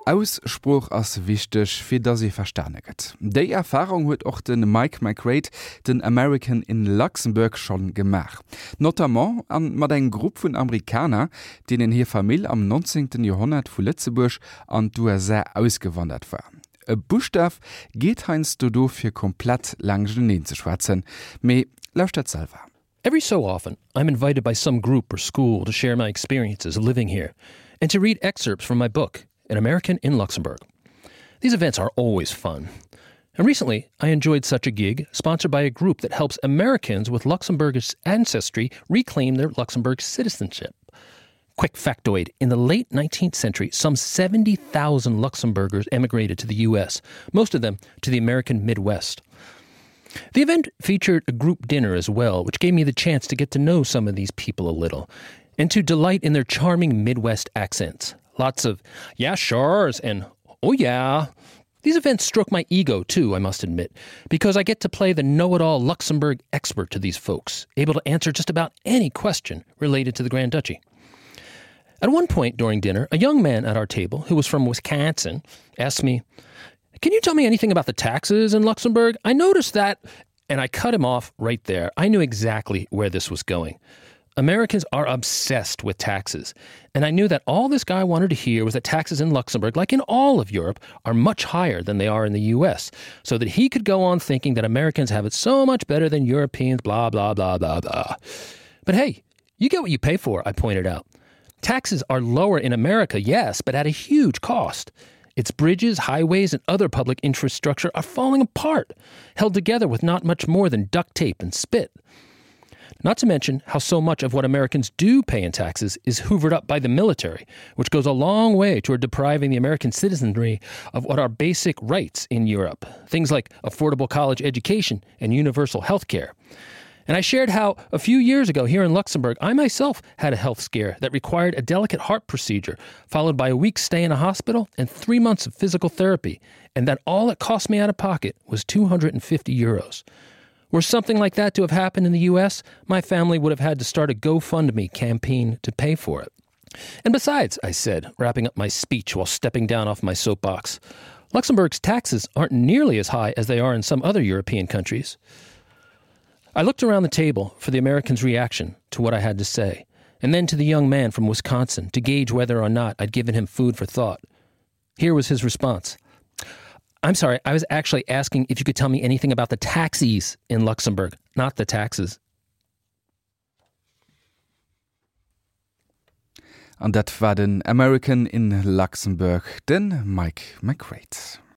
Ausspruch ass wichtech fir dat se verstaneget. Déi Erfahrung huet och den Mike McRae den American in Luxemburg schon gemach. Notamment an mat eng Grupp vun Amerikaner, denen hier Famill am 19. Jahrhundert vu Lützeburg an d'USA ausgewandert war. E Buchstaaf geht heinst du do fir komplett Langgeneen ze schwatzen, méi lauscht dat selber. Every so often, I'm invited by some group or school to share my experiences of living here and to read excerpts from my book, An American in Luxembourg. These events are always fun. And recently, I enjoyed such a gig sponsored by a group that helps Americans with Luxembourgish ancestry reclaim their Luxembourg citizenship. Quick factoid, in the late 19th century, some 70,000 Luxembourgers emigrated to the U.S., most of them to the American Midwest. The event featured a group dinner as well, which gave me the chance to get to know some of these people a little, and to delight in their charming Midwest accents. Lots of "yeah, sure's" and "oh yeah." These events stroke my ego, too, I must admit, because I get to play the know-it-all Luxembourg expert to these folks, able to answer just about any question related to the Grand Duchy. At one point during dinner, a young man at our table, who was from Wisconsin, asked me, "Can you tell me anything about the taxes in Luxembourg? I noticed that..." And I cut him off right there. I knew exactly where this was going. Americans are obsessed with taxes, and I knew that all this guy wanted to hear was that taxes in Luxembourg, like in all of Europe, are much higher than they are in the U.S., so that he could go on thinking that Americans have it so much better than Europeans, blah, blah, blah, blah, blah. But hey, you get what you pay for, I pointed out. Taxes are lower in America, yes, but at a huge cost. Its bridges, highways, and other public infrastructure are falling apart, held together with not much more than duct tape and spit. Not to mention how so much of what Americans do pay in taxes is hoovered up by the military, which goes a long way toward depriving the American citizenry of what are basic rights in Europe, things like affordable college education and universal health care. And I shared how, a few years ago here in Luxembourg, I myself had a health scare that required a delicate heart procedure, followed by a week's stay in a hospital and 3 months of physical therapy, and that all it cost me out of pocket was €250. Were something like that to have happened in the U.S., my family would have had to start a GoFundMe campaign to pay for it. And besides, I said, wrapping up my speech while stepping down off my soapbox, Luxembourg's taxes aren't nearly as high as they are in some other European countries. I looked around the table for the Americans' reaction to what I had to say, and then to the young man from Wisconsin to gauge whether or not I'd given him food for thought. Here was his response. "I'm sorry, I was actually asking if you could tell me anything about the taxis in Luxembourg, not the taxes." An dat war den American in Luxemburg, den Mike McRae.